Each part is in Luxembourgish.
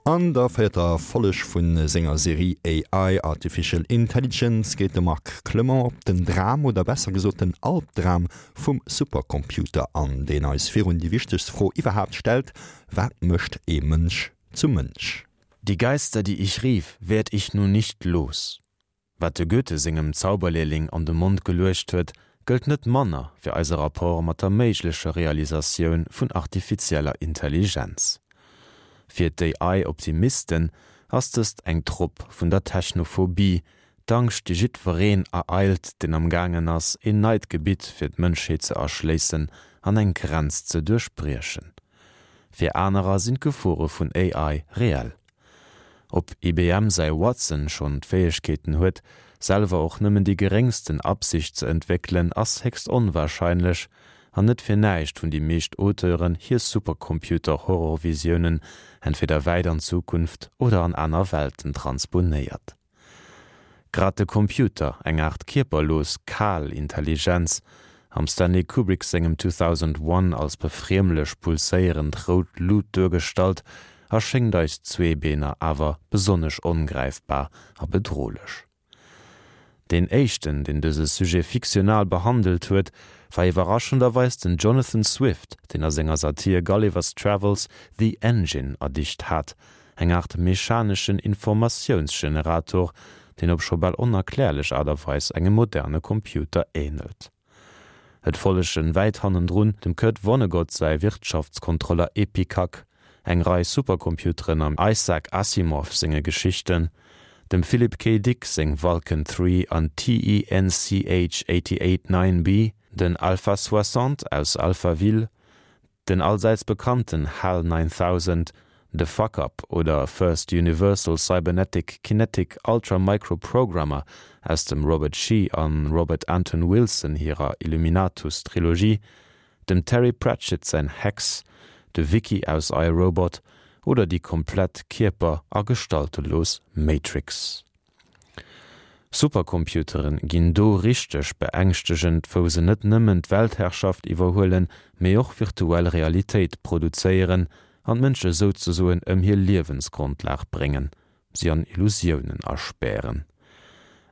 An der véierter Folleg vu senger Serie AI, Artificial Intelligence geet de Marc Clement op den Dram, oder besser gesot den Albdram vum Supercomputer an, deen eis virun déi wichtegst Fro iwwerhaapt stellt, Wat mécht ee Mënsch zum Mënsch? Die Geister, die ich rief, werd ich nun nicht los. Wat de Goethe sengem Zauberlehrling an de Mond geluecht huet, gëllt net manner fir eise Rapport mat der méiglecher Realisatioun vun artifizieller Intelligenz. Fir d'AI-Optimisten ass dëst eng Trop vun der Technophobie, d'Angscht déi jiddwereen ereilt, deen am gaangen ass, een neit Gebitt fir d'Mënschheet ze erschléissen an eng Grenz ze duerchbriechen. Fir anerer sinn d'Gefore vun AI reell. Ob IBM säi Watson schonn d'Fäegkeeten huet, selwer och nëmmen déi geréngsten Absicht ze entwéckelen, ass héchst onwarscheinlech. An net fir näischt hunn déi meescht Auteuren hir Supercomputer-Horrorvisiounen entweder wäit an d'Zukunft oder an aner Welten transponéiert. Grad de Computer, eng Aart kierperlos, kal Intelligenz, am Stanley Kubrick sengem 2001 als befriemlech pulséierend rout Lut duergestallt, erschéngt eis Zweebeener awer besonnesch ongräifbar a bedrohlech. Deen éischten, deen dëse Sujet fiktional behandelt huet, war iwwerraschenderweis den Jonathan Swift, deen a senger Satir Gulliver's Travels The Engine erdicht hat, Eng Aart mechaneschen Informatiounsgenerator, deen op scho bal onerklärlech Aart a Weis engem moderne Computer änelt. Et follegen wäit hannendrun dem Kurt Vonnegut säi Wirtschaftskontroller Epicac, eng Rei Supercomputeren am Isaac Asimov senge Geschichten, dem Philip K. Dick seng Vulcan 3 an TENCH 88 9B, den Alpha 60 aus Alphaville, Den allsäits bekannten HAL 9000, de Fuck-Up oder First Universal Cybernetic Kinetic Ultra Micro Programmer aus dem Robert Shee an Robert Anton Wilson hirer Illuminatus Trilogie, dem Terry Pratchett säin Hex, de Wiki aus I, Robot oder déi komplett kierper a gestaltelos Matrix. Supercomputeren ginn do richteg beängschtegend, wou se net nëmmen d'Weltherrschaft iwwerhuelen, mee och virtuell Realitéit produzéieren an d'Mënsche souzesoen ëm hir Liewensgrondlag bréngen, si an Illusiounen aspären.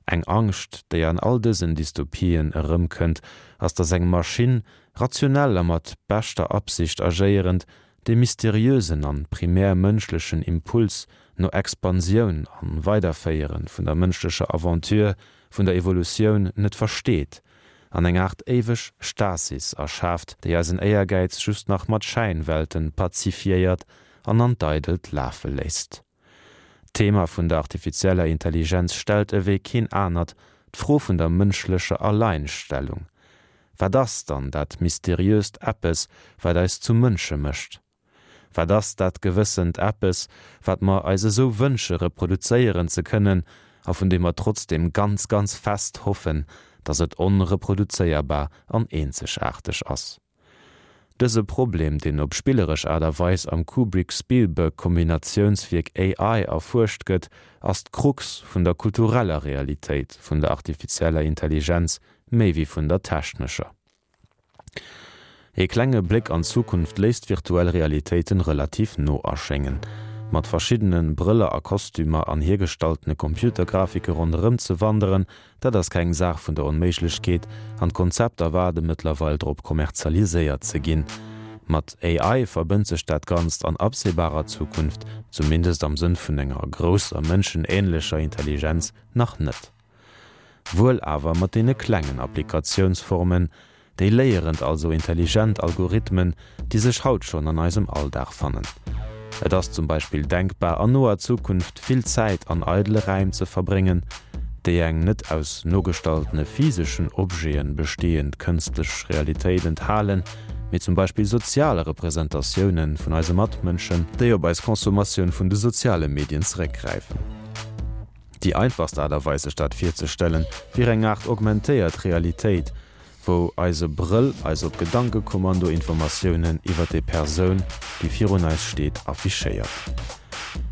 Eng Angscht, déi an all dësen Dystopien erëmkënnt, ass, datt eng Maschinn, rationell a mat beschter Absicht agéierend, dee mysteriösen an primär mënschlechen Impuls no Expansioun an Weiderféieren vun der mënschlecher Aventure, vun der Evolutioun net versteet an eng Aart éiweg Stasis erschaaft, déi eisen Éiergäiz just nach mat Schäinwelten pazifiéiert an an d'Eidelt lafe léisst. D'Thema vun der artifizieller Intelligenz stellt ewéi keen anert d'Fro vun der mënschlecher Alleinstellung. Wat ass dann dat mysteriöst Eppes, wat eis zu Mënsche mécht? Wat ass dat gewëssent Eppes, wat mer eis esou wënsche reproduzéieren ze kënnen a vun deem mer trotzdeem ganz, ganz fest hoffen, datt et onreproduzéierbar an eenzegaarteg ass? Dëse Problem, deen op spilleresch Aart a Weis am Kubrick-Spielberg-Kombinatiounswierk AI erfuerscht gëtt, ass d'Krux vun der kultureller Realitéit vun der artifizieller Intelligenz méi wéi vun der technescher. Ee klenge Bléck an d'Zukunft léisst virtuell Realitéiten relativ no erschéngen. Mat verschiddene Brëller a Kostümer an hiergestaltene Computergrafike ronderëm ze wanderen, dat ass keng Saach vun der Onméiglechkeet an d'Konzepter waarde mëttlerweil drop kommerzialiséiert ze ginn. Mat AI verbënnt sech dat Ganzt an absehbarer Zukunft, zumindest am Sënn vun enger grousser mënschenähnlecher Intelligenz, nach net. Wuel awer mat deene klengen Applikatiounsformen, déi léierend, also intelligent Algorithmen, déi sech haut schonn an eisem Alldag fannen. Et ass zum Beispill denkbar, an noer Zukunft vill Zäit an eidele Räim ze verbréngen, déi eng net aus nogestaltene physeschen Objete bestehend kënstlech Realitéit enthalen, mee zum Beispill sozial Representatioune vun eise Matmënschen, déi op eis Consommatioun vun de soziale Medien zeréckgräifen. Déi einfachst Aart a Weis sech dat virzestellen, wier eng Aart augmentéiert Realitéit, wou eise Brëll eis op Gedankekommando Informatiounen iwwer déi Persoun, déi virun eis steet, affichéiert.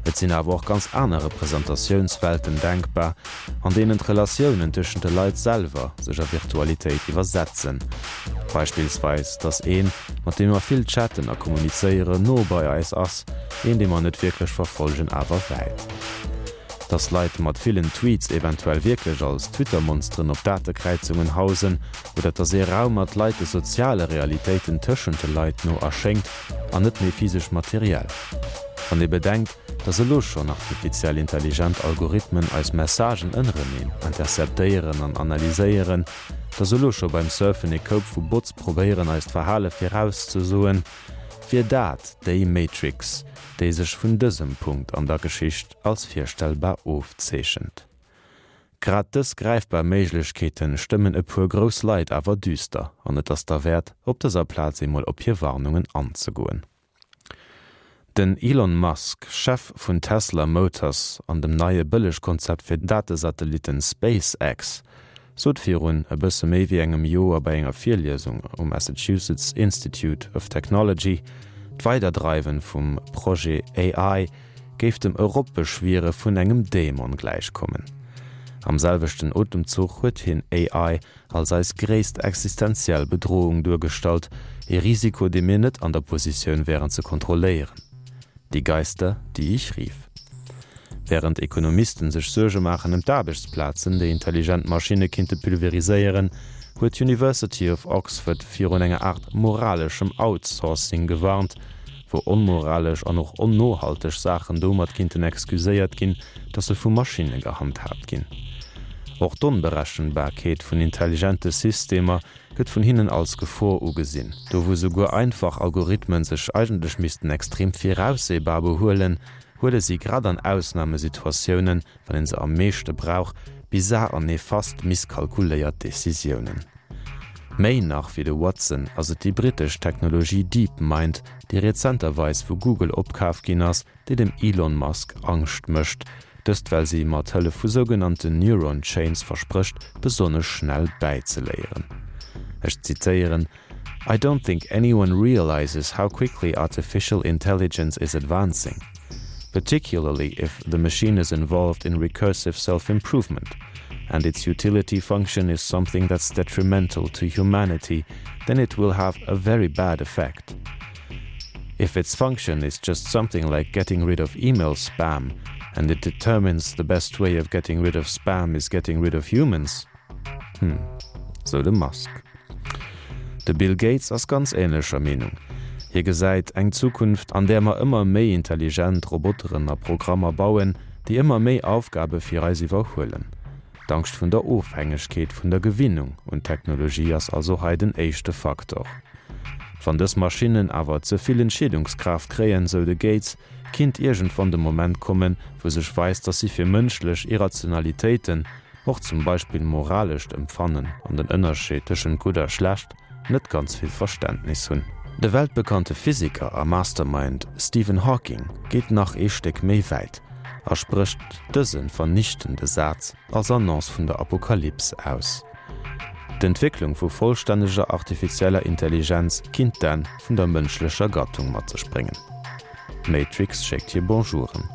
Et sinn awer och ganz aner Representatiounswelten denkbar, an deenen d'Relatiounen tëschent de Leit selwer sech a Virtualitéit iwwersetzen. Beispillsweis, dass een, mat deem mer vill chatten a kommunizéieren, no bei eis ass, een, dee mer net wierklech verfollegen, awer wäit. Dass Leit mat villen Tweets eventuell wierklech als Twitter-Monsteren op Datekräizungen hausen, oder dass ee Raum mat Leit de soziale Realitéiten tëschent de Leit no erschéngt an net méi physesch materiell. Wann ee bedenkt, dass elo schonn artifiziell intelligent Algorithmen eis Messagen ënnereneen interceptéieren an analyséieren, dass elo scho beim Surfen ee Koup vu Bots probéieren eist Verhale virauszesoen, wier dat déi Matrix, déi sech vun dësem Punkt an der Geschicht als virstellbar ofzeechent. Grad dës gräifbar Méiglechkeete stëmmen e puer grouss Leit awer düster an et ass derwäert, op dëser Plaz eemol op hir Warnungen anzegoen. Den Elon Musk, Chef vun Tesla Motors an dem neie Bëllegkonzept fir Datesatellitten SpaceX, sot virun e bësse méi wéi engem Joer bei enger Virliesung um Massachusetts Institute of Technology, d'Weiderdreiwen vum Projet AI géif dem Eropbeschwiere vun engem Dämon gläichkommen. Am selwechten Otemzuch huet hien AI als eis gréisst existenziell Bedrohung duergestallt, ee Risiko, dee mir net an der Positioun wären ze kontrolléieren. Die Geister, die ich rief. Wärend Ekonomisten sech Suerge maachen ëm d'Aarbechtsplazen, déi intelligent Maschinne kinnte pulveriséieren, huet d'University of Oxford virun enger Aart moraleschem Outsourcing gewarnt, wou onmoralesch an och onnohalteg Saachen domat kinnten excuséiert ginn, dass se vu Maschinne gehandhaabt ginn. Och d'Onberechenbarkeet vun intelligente Systemer gëtt vun hinnen als Gefor ugesinn. Do wou souguer einfach Algorithmen sech eigentlech missten extrem viraussehbar behuelen, huele si grad an Ausnamesituatiounen, wann een se am meeschte brauch, bizar an nefast misskalkuléiert Decisiounen. Méi nach wéi de Watson ass et déi brittesch Technologie DeepMind, déi rezenterweis vu Google opkaf ginn ass, déi dem Elon Musk Angscht mécht. Dëst well si mat Hëllef vu sougenannten Neuron Chains versprécht, besonnesch schnell bäizeléieren. Ech zitéieren, I don't think anyone realizes how quickly artificial intelligence is advancing, particularly if the machine is involved in recursive self-improvement and its utility function is something that's detrimental to humanity, then it will have a very bad effect. If its function is just something like getting rid of email spam and it determines the best way of getting rid of spam is getting rid of humans, Hm, sou de Musk. De Bill Gates ass ganz änlecher Meenung. Hie gesäit eng Zukunft, an där mer ëmmer méi intelligent Roboteren a Programmer bauen, déi ëmmer méi Aufgabe fir eis iwwerhuelen. D'Angscht vun der Ofhängegkeet, vun der Gewinnung un d'Technologie ass also hei den éischte Faktor. Wann dës Maschinnen awer ze vill Entscheedungskraaft kréien, sou de Gates, kinnt iergendwann de Moment kommen, wou sech weist, dass si fir mënschlech Irrationalitéiten, och zum Beispill moralescht Empfannen an den Ënnerscheed tëschent gutt a schlecht, net ganz vill Verständnis hunn. De weltbekannte Physiker a Mastermind Stephen Hawking geet nach ee Stéck méi wäit a sprécht dëse vernichtende Saz als Annonce vun der Apokalyps aus, D'Entwécklung vu vollstänneger artifizieller Intelligenz kinnt d'Enn vun der mënschlecher Gattung mat sech bréngen. D'Matrix schéckt hir Bonjouren.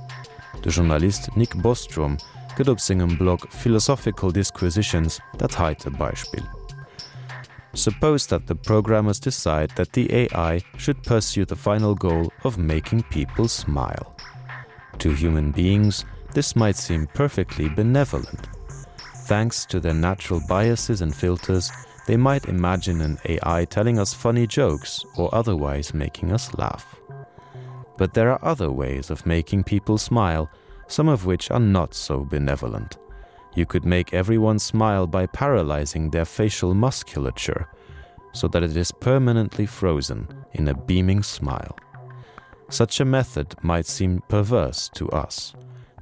De Journalist Nick Bostrom gëtt op sengem Blog Philosophical Disquisitions dat heite Beispill, Suppose that the programmers decide that the AI should pursue the final goal of making people smile. To human beings, this might seem perfectly benevolent. Thanks to their natural biases and filters, they might imagine an AI telling us funny jokes or otherwise making us laugh. But there are other ways of making people smile, some of which are not so benevolent. You could make everyone smile by paralyzing their facial musculature so that it is permanently frozen in a beaming smile. Such a method might seem perverse to us,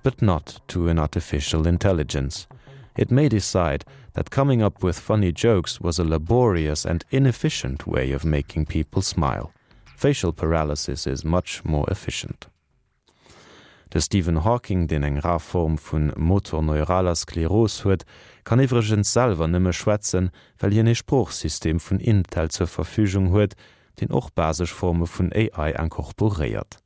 but not to an artificial intelligence. It may decide that coming up with funny jokes was a laborious and inefficient way of making people smile. Facial paralysis is much more efficient. De Stephen Hawking, deen eng rar Form vu motorneuraler Skleros huet, kann iwwregens selwer nëmme schwätzen, well hien ee Sproochsystem vun Intel zur Verfügung huet, deen och basesch Forme vun AI incorporéiert.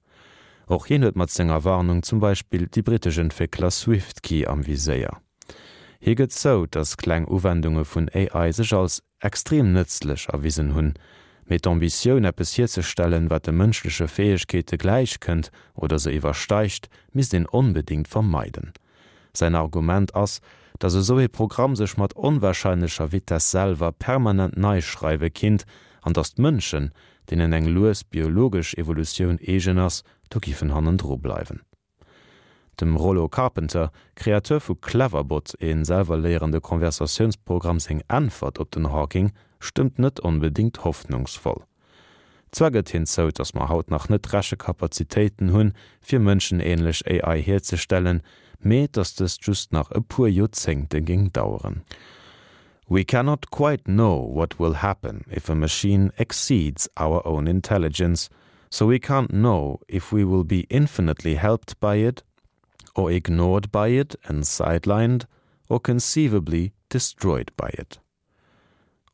Och hien huet mat senger Warnung zum Beispill déi brittesch Entwéckler Swiftkey am Viséier. Hie gëtt zou, datt kleng Uwendunge vun AI sech als extrem nëtzlech erwisen hunn, mee d'Ambitioun, eppes hierzestellen, wat de mënschleche Fäegkeete gläich kënnt oder se iwwersteigt, misst een onbedéngt vermeiden. Säin Argument ass, datt esou ee Programm sech mat onwarscheinlecher Vitess selwer permanent nei schreiwe kinnt an datt d'Mënschen, deenen eng lues biologesch Evolutioun eegen ass, do giffen hannendru bleiwen. Dem Rollo Carpenter, Kreateur vu Cleverbot, ee selwer-léierende Conversatiounsprogramm, seng Äntwert op den Hawking stëmmt net onbedéngt hoffnungsvoll. Zwar gëtt hien zou, datt mer haut nach net d'Rechekapazitéiten hunn, fir mënschenähnlech AI hierzestellen, mee datt dëst just nach e puer Joerzéngte géing daueren. We cannot quite know what will happen if a machine exceeds our own intelligence, So we can't know if we will be infinitely helped by it or ignored by it and sidelined or conceivably destroyed by it.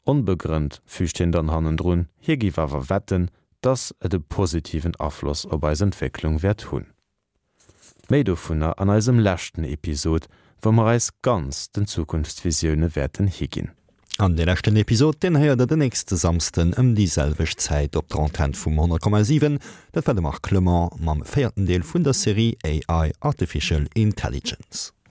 Onbegrënnt füügt hien dann hannendrun, hie géif awer wetten, dass et e positiven Afloss op eis Entwécklung wäert hunn. Méi dovunner an eisem leschten Episod, wou mer eis ganz den Zukunftsvisioune wäerten higinn. An dee leschten Episod, deen héiert der den nächste Samsden ëm déi selwecht Zäit op der Antenn vum 100,7. Dat war de Marc Clement mam véierten Deel vun der Serie AI, Artificial Intelligence.